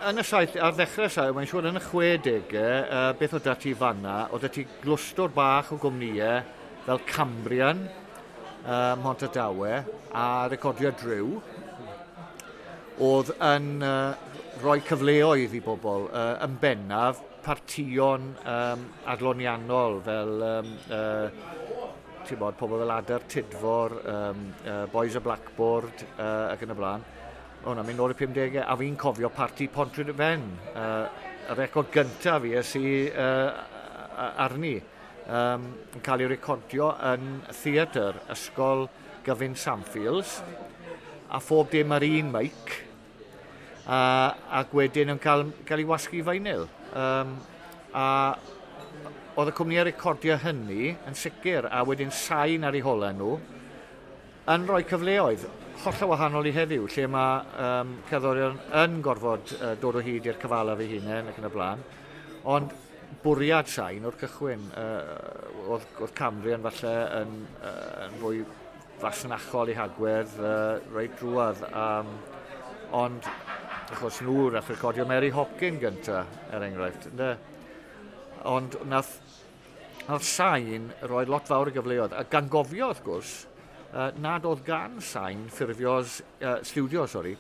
Yn y saith, ar ddechrau saith, mae'n siŵr yn y 60au, beth oedd 'da ti fanna, oedd 'da ti glwstwr bach o gwmnïau fel Cambrian, Mhontardawe a Recordio Drew, oedd yn rhoi cyfleoedd i bobl, yn bennaf partïon adloniannol fel ti'n bod, pobl fel Adar Tudfor, Boys of Blackboard ac yn y blaen. O na, mynd nôl i'r 50au, a fi'n cofio parti Pontrhydyfen, y record gyntaf fi es i arni, yn cael ei recordio yn theatr Ysgol Gyfun Samfields, a phob dim ar un mic, ac wedyn yn cael ei wasgu vinyl. A oedd y cwmnïau recordio hynny yn sicr, a wedyn Sain ar eu holau nhw, yn rhoi cyfleoedd hollol wahanol i heddiw, lle mae cerddorion yn gorfod dod o hyd i'r cyfalaf eu hunain ac yn y blaen. Ond bwriad Sain o'r cychwyn, oedd Cambrian falle yn fwy fasnachol i hagwedd reit drwadd. Ond achos nhw nath recordio Mary Hopkin gynta, er enghraifft. Ynde? Ond nath Sain roi lot fawr o gyfleoedd. A gan gofio, wrth gwrs, nad oedd gan Sain ffurfios, studio, sorry,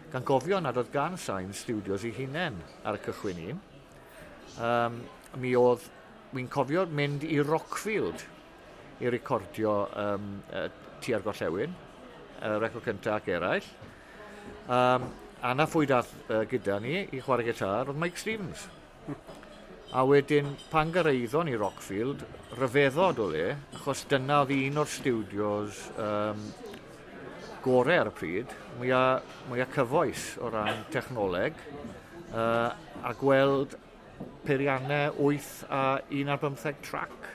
gan gofio nad oedd gan Sain studios ei hunain ar y cychwyn un. Mi oedd, mi'n cofio mynd i Rockfield i recordio Tua'r Gorllewin, record cyntaf ac eraill. A na phwy dath gyda ni i chwarae gitar, oedd Mike Stevens. A wedyn, pan gyrraeddon ni Rockfield, rhyfeddod o le, achos dyna oedd un o'r studios gorau ar y pryd, mwyaf cyfoes o ran technoleg, a gweld peiriannau 8 a 1 ar 15 track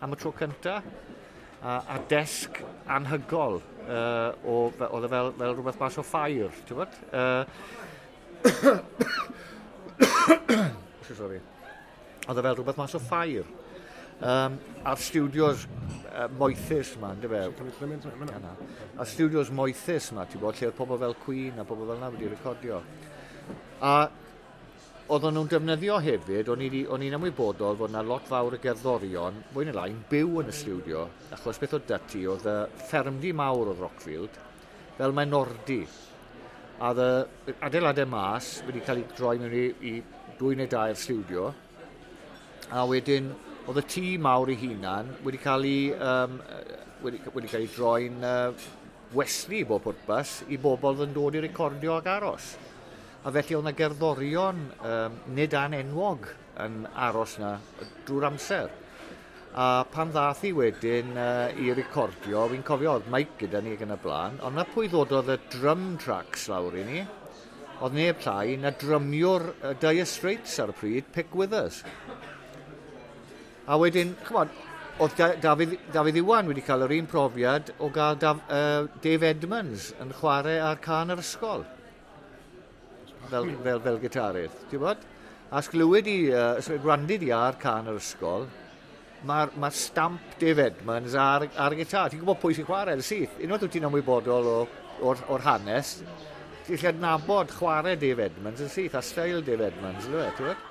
am y tro cyntaf, a desg anhygol, oedd e fel rhywbeth mas o ffair, ti'n gwybod? Sorry. Oedd e fel rhywbeth mas o ffair. A'r studios moethus yma, ynddo fe? A'r studios moethus yma, ti'n bod, lle oedd pobl fel Queen a pobl fel yna wedi recordio. A oedden nhw'n defnyddio hefyd, o'n i'n ymwybodol fod yna lot fawr o gerddorion, fwy neu lai, yn byw yn y studio, achos beth oedd 'da ti, oedd y ffermdy mawr oedd Rockfield, fel maenordy. A oedd y adeiladau mas wedi cael ei droi mewn i 2 neu 3 studio, a wedyn oedd y tŷ mawr ei hunan wedi cael ei, wedi cael ei droi'n westy i bob pwrpas i bobl oedd yn dod i recordio ac aros. A felly oedd yna gerddorion nid anenwog yn aros yna drwy'r amser. A pan ddath i wedyn i recordio, fi'n cofio oedd Mike gyda ni ac yn y blaen, ond na pwy ddododd y drum tracks lawr i ni, oedd neb llai na drymiwr Dire Straits ar y pryd, Pick Withers. A wedyn, ch'mod, oedd Dafydd Iwan wedi cael yr un profiad o gael Dave Edmunds yn chwarae ar can yr ysgol. Fel gitarydd, ti'n bod? A sglywed i, gwrandid i ar can yr ysgol, mae'r stamp Dave Edmunds ar y gitar. Ti'n gwybod pwy sy'n chwarae yn syth. Unwaith wyt ti'n ymwybodol o'r hanes, ti'n gallu adnabod chwarae Dave Edmunds yn syth, a steil Dave Edmunds, ti'n gwybod?